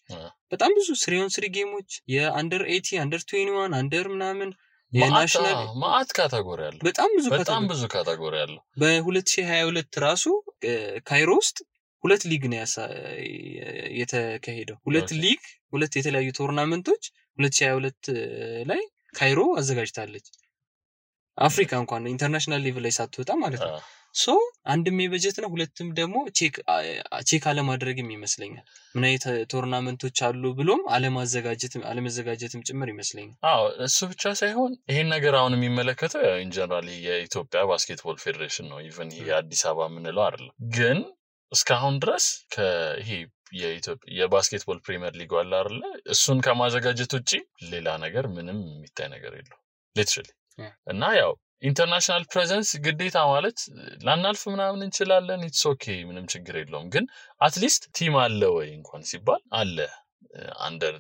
በጣም ብዙ 3-on-3 ጌሞች የአንደር 80 አንደር 21 አንደር ምናምን የናሽናል ማአት ካታጎሪ አለ በጣም ብዙ ካታጎሪ አለ በ2022 ራሱ ካይሮ ውስጥ ሁለት ሊግ ነው የተካሄደው ሁለት የተለያዩ ቶርናመንቶች 2022 ላይ ካይሮ አዘጋጅታለች አፍሪካ እንኳን ኢንተርናሽናል ሌቭል ላይ ሳትወጣ ማለት ነው ሶ አንድም የበጀት ነው ሁለቱም ደግሞ ቼክ አለ ማድረግም ይመስለኛል ምን አይነት ቶርናመንቶች አሉ ብሎም አለመዘጋጀትም ጭምር ይመስለኛል እሱ ብቻ ሳይሆን ይሄን ነገር አሁን የሚመለከተው ኢን ጀነራል የኢትዮጵያ ባስኬትቦል ፌዴሬሽን ነው ኢቭን ይሄ አዲስ አበባ ምንለው አይደለም ግን እስካሁን ድረስ ከይሄ የኢትዮጵያ የባስኬትቦል ፕሪሚየር ሊግ አለ አይደል እሱን ከማዘጋጀት ውጪ ሌላ ነገር ምንም የሚታይ ነገር የለው ሊትራሊ እና ያው ኢንተርናሽናል ፕሬዘንስ ግዴታ ማለት ላናልፍ ምናምን እንችላለን ኢትስ ኦኬ ምንም ችግር የለውም ግን አትሊስት ቲም አለ ወይ እንኳን ሲባል አለ under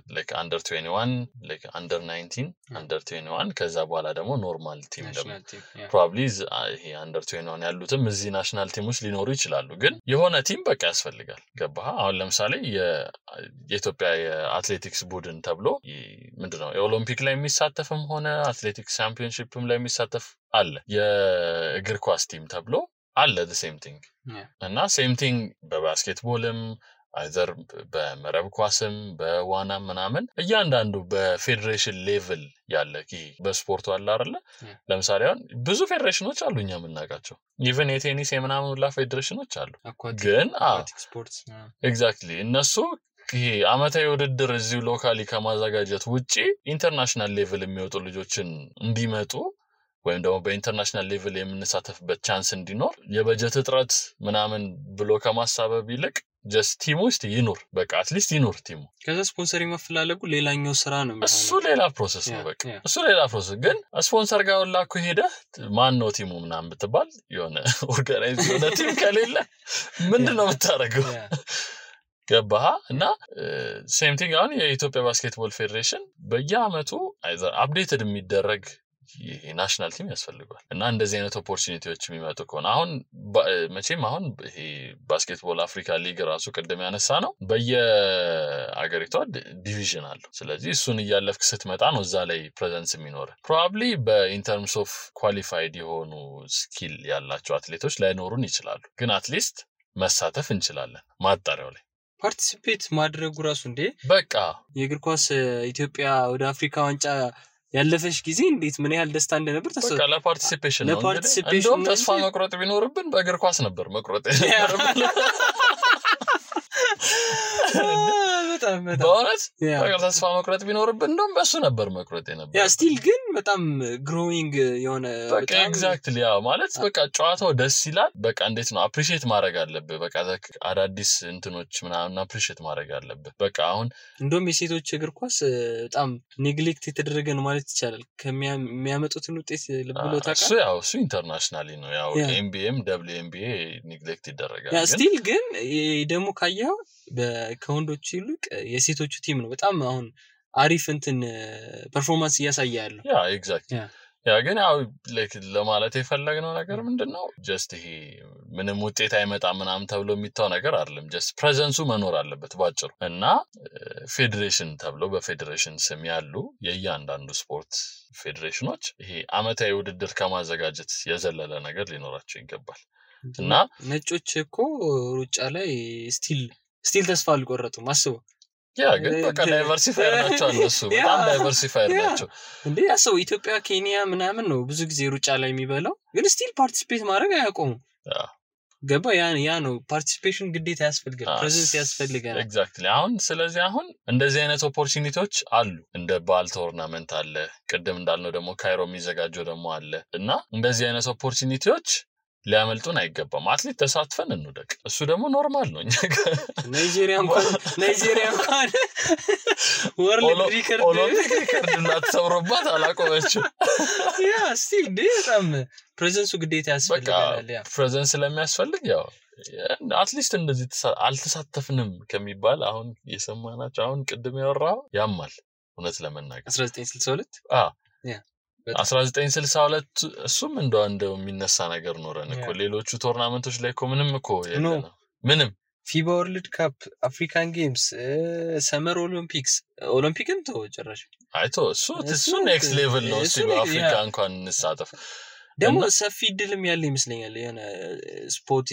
21 like under 19 under 21 ከዛ በኋላ ደግሞ ኖርማል ቲም ደግሞ probably ይሄ under 21 ያሉትም እዚህ ናሽናል ቲሞች ሊኖሩ ይችላሉ ግን የሆነ ቲም በቃ ያስፈልጋል ገባህ አሁን ለምሳሌ የኢትዮጵያ የአትሌቲክስ ቡድን ተብሎ ምንድነው የኦሎምፒክ ላይ የሚሳተፍም ሆነ አትሌቲክስ ቻምፒዮንሺፕም ላይ የሚሳተፍ አለ የእግር ኳስ ቲም ተብሎ አለ the same thing እና same thing በባስኬትቦልም አይዘር በመረብ ኳስም በዋናም ምናምን እያንዳንዱ በፌዴሬሽን ሌቭል ያለ በስፖርቱ አለ አይደለ ለምሳሌ አሁን ብዙ ፌዴሬሽኖች አሉ እኛ የምናውቃቸው ኢቭን የቴኒስ የምናምን ሁላ ፌዴሬሽኖች አሉ ግን ስፖርትስ ኤግዛክትሊ እነሱ ይሄ አመታዊ ውድድር እዚሁ ሎካሊ ከማዘጋጀት ውጪ ኢንተርናሽናል ሌቭል የሚወጡ ልጆችን እንዲመጡ ወይም ደግሞ በኢንተርናሽናል ሌቭል የምንሳተፍበት ቻንስ እንዲኖር የበጀት እጥረት ምናምን ብሎ ከማሳበብ ይልቅ just ቲሙ ውስጥ ይኖር በቃ አትሊስት ይኖር ቲሙ ከዛ ስፖንሰር መፈላለጉ ሌላኛው ስራ ነው የሚሆነው እሱ ሌላ ፕሮሰስ ነው በቃ እሱ ሌላ ፕሮሰስ ግን ስፖንሰር ጋር ላኩ ሄደ ማን ነው ቲሙ ምናምን ብትባል የሆነ ኦርጋናይዝ የሆነ ቲም ከሌለ ምንድነው የምታረገው ገባህ እና ሴም ቲንግ አሁን የኢትዮጵያ ባስኬትቦል ፌዴሬሽን በየአመቱ አይዘር አፕዴትድ የሚደረግ የናሽናል ቲም ያስፈልጋል እና እንደዚህ አይነት ኦፖርቹኒቲዎች የሚመጡ ከሆነ አሁን መቼም አሁን ይሄ ባስኬትቦል አፍሪካ ሊግ ራሱ ቀደም ያነሳ ነው በየአገሪቷ ዲቪዥን አለው ስለዚህ እሱን እያለፍክ ስትመጣ ነው እዛ ላይ ፕሬዘንስ የሚኖር ፕሮባብሊ በኢንተርምስ ኦፍ ኳሊፋይድ የሆኑ ስኪል ያላቸው አትሌቶች ላይኖሩን ይችላሉ ግን አትሊስት መሳተፍ እንችላለን ማጣሪያው ላይ ፓርቲሲፔት ማድረጉ ራሱ እንዴ በቃ የእግር ኳስ ኢትዮጵያ ወደ አፍሪካ ዋንጫ ያለፈሽ ጊዜ እንዴት ምን ያህል ደስታ እንደነበር ተሰው በቃ ለፓርቲሲፔሽን ነው እንደውም ተስፋ መቁረጥ ቢኖርብን በእግር ኳስ ነበር መቁረጥ በጣም በእውነት በቃ ተስፋ መቁረጥ ቢኖርብን እንደውም በሱ ነበር መቁረጥ ነበር ያ ስቲል ግን በጣም ግሮዊንግ የሆነ በቃ ኤግዛክትሊ ያ ማለት በቃ ጨዋታው ደስ ይላል በቃ እንዴት ነው አፕሪሺየት ማድረግ አለብህ በቃ አዳዲስ እንትኖች ምናምን አፕሪሺየት ማድረግ አለብህ በቃ አሁን እንደውም የሴቶች እግር ኳስ በጣም ኔግሌክት የተደረገ ነው ማለት ይቻላል ከሚያመጡትን ውጤት ልብሎ ታውቃለህ እሱ ያው እሱ ኢንተርናሽናሊ ነው ያው ኤምቢኤም WNBA ኔግሌክት ይደረጋል ያ ስቲል ግን ደግሞ ካየው ከወንዶች ይልቅ የሴቶቹ ቲም ነው በጣም አሁን አሪፍ እንትን ፐርፎርማንስ እያሳያሉ ያ ኤግዛክትሊ ያ ግን ያው ላይክ ለማለት የፈለግነው ነገር ምንድነው ጀስት ይሄ ምንም ውጤት አይመጣም ምናምን ተብሎ የሚታው ነገር አይደለም ጀስት ፕሬዘንሱ መኖር አለበት ባጭሩ እና ፌዴሬሽን ተብሎ በፌዴሬሽን ስም ያሉ የእያንዳንዱ ስፖርት ፌዴሬሽኖች ይሄ አመታዊ ውድድር ከማዘጋጀት የዘለለ ነገር ሊኖራቸው ይገባል እና ነጮች እኮ ሩጫ ላይ ስቲል ተስፋ አልቆረጡም አስበው ያ ግን በቃ ዳይቨርሲፋየር ናቸው እነሱ በጣም ዳይቨርሲፋየር ናቸው እንዴ ያሰው ኢትዮጵያ ኬንያ ምናምን ነው ብዙ ጊዜ ሩጫ ላይ የሚበላው ግን ስቲል ፓርቲሲፔት ማድረግ አያቆሙ ገባ ያ ነው ፓርቲሲፔሽን ግዴታ ያስፈልጋል ፕሬዘንስ ያስፈልጋል ኤግዛክትሊ አሁን ስለዚህ አሁን እንደዚህ አይነት ኦፖርቹኒቲዎች አሉ እንደ ባል ቶርናመንት አለ ቅድም እንዳልነው ደግሞ ካይሮ የሚዘጋጀው ደግሞ አለ እና እንደዚህ አይነት ኦፖርቹኒቲዎች ሊያመልጡን አይገባም አትሊት ተሳትፈን እንውደቅ እሱ ደግሞ ኖርማል ነው ናይጄሪያ እንኳን ወርልድ ሪከርድ እንዳትሰብሩባት አላቆመችም ያ ስቲል በጣም ፕሬዘንሱ ግዴታ ያስፈልጋል ያ ፕሬዘንስ ስለሚያስፈልግ ያው አትሊስት እንደዚህ አልተሳተፍንም ከሚባል አሁን የሰማናቸው አሁን ቅድም ያወራው ያማል እውነት ለመናገር 1962 ያ 1962 እሱም እንደው የሚነሳ ነገር ኖረን እኮ ሌሎቹ ቶርናመንቶች ላይ እኮ ምንም እኮ የለም ምንም ፊባ ወርልድ ካፕ አፍሪካን ጌምስ ሰመር ኦሎምፒክም ተወጨራሽ አይቶ እሱ ኔክስት ሌቭል ነው እሱ በአፍሪካ እንኳን እንሳተፍ ደግሞ ሰፊ ድልም ያለ ይመስለኛል የሆነ ስፖርት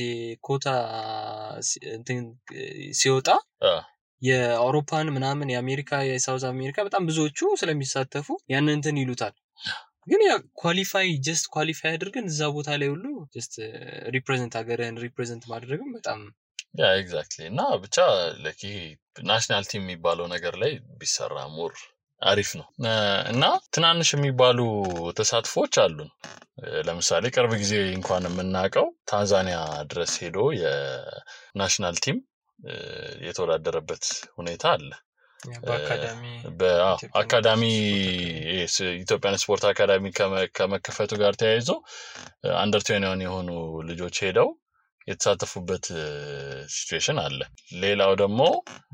ኮታ እንትን ሲወጣ የአውሮፓን ምናምን የአሜሪካ የሳውዝ አሜሪካ በጣም ብዙዎቹ ስለሚሳተፉ ያን እንትን ይሉታል ግን ያ ኳሊፋይ አድርገን እዛ ቦታ ላይ ሁሉ ጀስት ሪፕሬዘንት አገርን ሪፕሬዘንት ማድረግም በጣም ያ ኤግዛክትሊ እና ብቻ ለኪ ናሽናል ቲም የሚባለው ነገር ላይ ቢሰራ ሞር አሪፍ ነው እና ትናንሽ የሚባሉ ተሳትፎች አሉን ለምሳሌ ቅርብ ጊዜ እንኳን የምናውቀው ታንዛኒያ ድረስ ሄዶ የናሽናል ቲም የተወዳደረበት ሁኔታ አለ በአካዳሚ ኢትዮጵያን ስፖርት አካዳሚ ከመከፈቱ ጋር ተያይዞ አንደር 21 የሆኑ ልጆች ሄደው የተሳተፉበት ሲቹዌሽን አለ ሌላው ደግሞ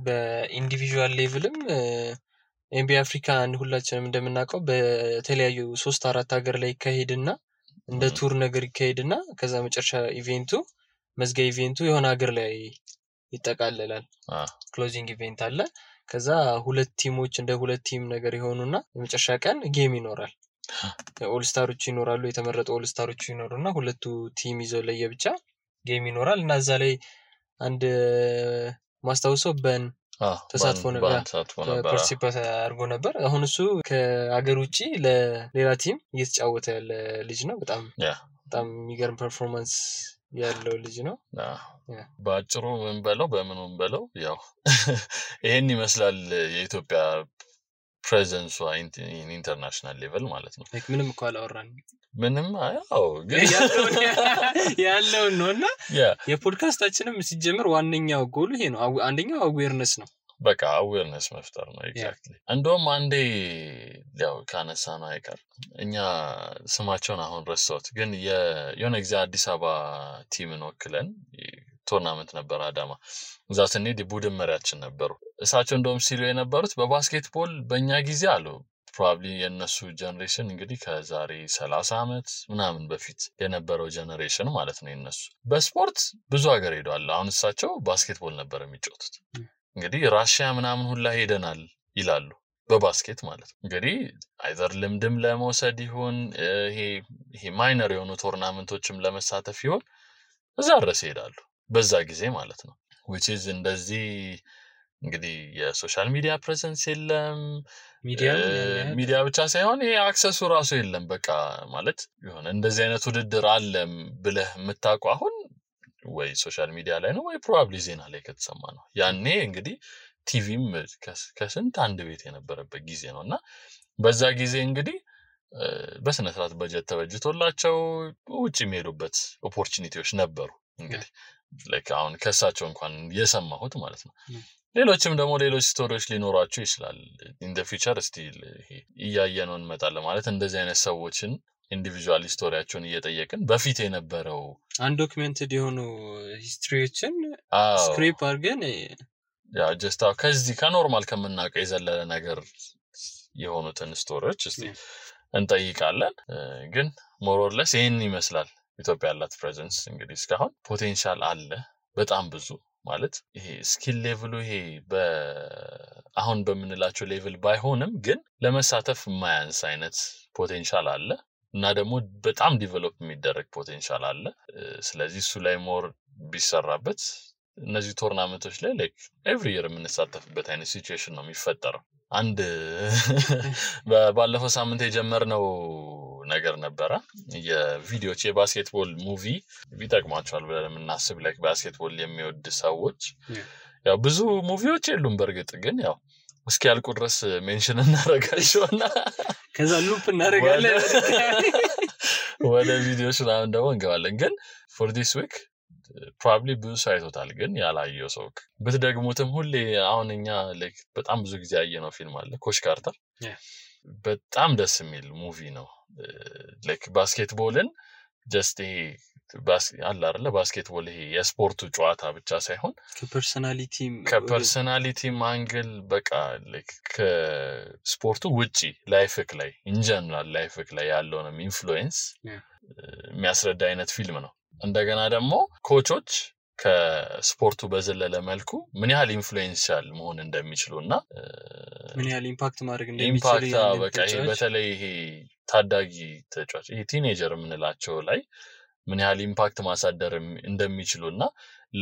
በኢንዲቪጁዋል ሌቭልም ኤምቢ አፍሪካ ሁላችንም እንደምናውቀው በተለያዩ 3-4 ሀገር ላይ ይካሄድና እንደ ቱር ነገር ይካሄድና ከዛ መጨረሻ መዝጊያ ኢቬንቱ የሆነ ሀገር ላይ ይጠቃለላል ክሎዚንግ ኢቬንት አለ ከዛ ሁለት ቲሞች እንደ ሁለት ቲም ነገር ይሆኑና የመጨረሻ ቀን ጌም ይኖራል ኦል ስታሮች ይኖራሉ የተመረጡ ኦል ስታሮች ይኖሩና ሁለቱ ቲም ይዘው ለየብቻ ጌም ይኖራል እና እዛ ላይ አንድ ማስታወሰው ተሳትፎ ነበር ፓርቲሲፔት አድርጎ ነበር አሁን እሱ ከሀገር ውጪ ለሌላ ቲም እየተጫወተ ያለ ልጅ ነው በጣም የሚገርም ፐርፎርማንስ ያለው ልጅ ነው ባጭሩ ምን በለው በምንም በለው ያው ይሄን ይመስላል የኢትዮጵያ ፕሬዘንስ ኢንተርናሽናል ሌቭል ማለት ነው ምንም እኮ አላወራን ምንም ያው ግን ያለው ነውና የፖድካስታችንም ሲጀምር ዋነኛው ጎል ይሄ ነው አንደኛው አዌርነስ ነው በቃ አዌርነስ መፍጠር ነው ኤግዛክትሊ እንደውም አንዴ ያው ካነሳና አይቀር እኛ ስማቸውን አሁን ረሳሁት ግን የሆነ ጊዜ አዲስ አበባ ቲምን ወክለን ቶርናመንት ነበር አዳማ እዛ ስንሄድ ቡድን መሪያችን ነበሩ እሳቸው እንደውም ሲሉ የነበሩት በባስኬትቦል በእኛ ጊዜ አሉ ፕሮባብሊ የነሱ ጀነሬሽን እንግዲህ ከዛሬ 30 አመት ምናምን በፊት የነበረው ጀነሬሽን ማለት ነው የነሱ በስፖርት ብዙ ሀገር ሄዷል አሁን እሳቸው ባስኬትቦል ነበር የሚጫወቱት እንግዲህ ራሺያ ምናምን ሁላ ሄደናል ይላሉ በባስኬት ማለት እንግዲህ አይዘር ልምድም ለመውሰድ ይሁን ይሄ ማይነር የሆኑ ቶርናመንቶችም ለመሳተፍ ይሁን እዛ ድረስ ይሄዳሉ በዛ ጊዜ ማለት ነው which is እንደዚህ እንግዲህ የሶሻል ሚዲያ ፕሬዘንስ የለም ሚዲያ ብቻ ሳይሆን ይሄ አክሰሱ ራሱ የለም በቃ ማለት ይሆነ እንደዚህ አይነት ውድድር አለም ብለህ የምታውቀው አሁን ወይ ሶሻል ሚዲያ ላይ ነው ወይ ፕሮባብሊ ዜና ላይ ከተሰማ ነው ያኔ እንግዲህ ቲቪም ከስንት አንድ ቤት የነበረበት ጊዜ ነውና በዛ ጊዜ እንግዲህ በስነ ስርዓት በጀት ተበጅቶላቸው ውጪ የሚሄዱበት ኦፖርቹኒቲዎች ነበሩ እንግዲህ like አሁን ከሳቸው እንኳን የሰማሁት ማለት ነው ሌሎችም ደግሞ ሌሎች ስቶሪዎች ሊኖራቸው ይችላል in the future still እያየነው እንመጣለን ማለት እንደዚህ አይነት ሰዎችን ኢንዲቪጁዋል ስቶሪያቸውን እየጠየቅን በፊት የነበረው አንዶክመንትድ የሆኑ ሂስትሪዎችን ስክሪፕ አድርገን ያ ጀስት ከዚህ ከኖርማል ከምናውቀው የዘለለ ነገር የሆኑትን ስቶሪዎች እስቲ እንጠይቃለን ግን ሞር ኦር ለስ ይሄን ይመስላል ኢትዮጵያ ያላት ፕሬዘንስ እንግዲህ እስካሁን ፖቴንሻል አለ በጣም ብዙ ማለት ይሄ ስኪል ሌቭሉ ይሄ አሁን በመንላቸው ሌቭል ባይሆንም ግን ለመሳተፍ ማያንስ አይነት ፖቴንሻል አለ እና ደግሞ በጣም ዲቨሎፕ የሚደረግ ፖቴንሻል አለ ስለዚህ እሱ ላይ ሞር ቢሰራበት እነዚህ ቶርናመንቶች ላይ ላይክ ኤቭሪ ኢየር የምንሳተፍበት አይነት ሲቹዌሽን ነው የሚፈጠረው አንድ ባለፈው ሳምንት የጀመርነው ነገር ነበረ የቪዲዮች የባስኬትቦል ሙቪ ቢጠቅማቸዋል ብለን የምናስብ ላይክ ባስኬትቦል የሚወድ ሰዎች ያው ብዙ ሙቪዎች የሉም በርግጥ ግን ያው እስኪ ያልቁ ድረስ ሜንሽን እናደርጋቸውና ከዛ ሉፕ እናደርጋለን ወደ ቪዲዮች ላይ ደግሞ እንገባለን ግን for this week probably ብዙ ሳይቶታል ግን ያላየው ሰው በተደግሞትም ሁሌ አሁን እኛ ላይክ በጣም ብዙ ጊዜ ያየነው ፊልም አለ ኮች ካርተር በጣም ደስ የሚል ሙቪ ነው ላይክ ባስኬትቦልን ጀስት አለ አይደለ ባስኬትቦል ይሄ የስፖርቱ ጨዋታ ብቻ ሳይሆን ከፐርሰናሊቲ ማንግል በቃ ላይክ ከስፖርቱ ውጪ ላይፍክ ላይ ኢን ጀነራል ላይፍክ ላይ ያለውን ኢንፍሉዌንስ የሚያስረዳ አይነት ፊልም ነው እንደገና ደግሞ ኮቾች ከስፖርቱ በዘለለ መልኩ ምን ያህል ኢንፍሉዌንሻል መሆን እንደሚችሉና ምን ያህል ኢምፓክት ማድረግ እንደሚችሉ ኢምፓክት በቃ በተለይ ይሄ ታዳጊ ተጫዋች ይሄ ቲኔጀር የምንላቸው ላይ ምን ያህል ኢምፓክት ማሳደር እንደሚችሉና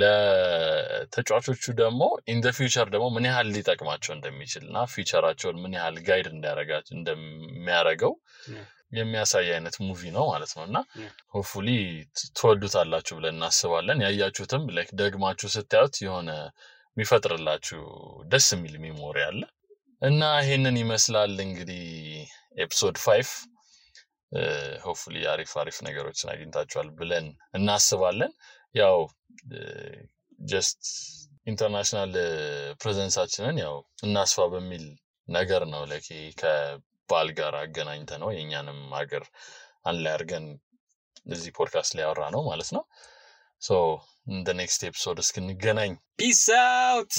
ለተጫዋቾቹ ደግሞ ኢን ዘ ፊውቸር ደግሞ ምን ያህል ሊጠቅማቸው እንደሚችልና ፊውቸራቸውን ምን ያህል ጋይድ እንዲያረጋቸው እንደሚያረጋው የሚያሳይ አይነት ሙቪ ነው ማለት ነውና ሆፕፉሊ ተወዱታላችሁ ብለን እናስባለን ያያችሁትም ላይክ ደግማችሁ ስታዩት የሆነ የሚፈጥርላችሁ ደስ የሚል ሜሞሪ አለ እና ይሄንን ይመስላል እንግዲህ ኤፒሶድ 5 ሆፕፉሊ አሪፍ ነገሮችን አግኝታችኋል ብለን እናስባለን ያው ጀስት ኢንተርናሽናል ፕሬዘንሳችንን ያው እናስፋ በሚል ነገር ነው ላይክ ባል ጋር አገናኝተ ነው የኛንም ሀገር አንላይ አርገን እዚህ ፖድካስት ላይ አወራ ነው ማለት ነው so in the next episode እስክንገናኝ peace out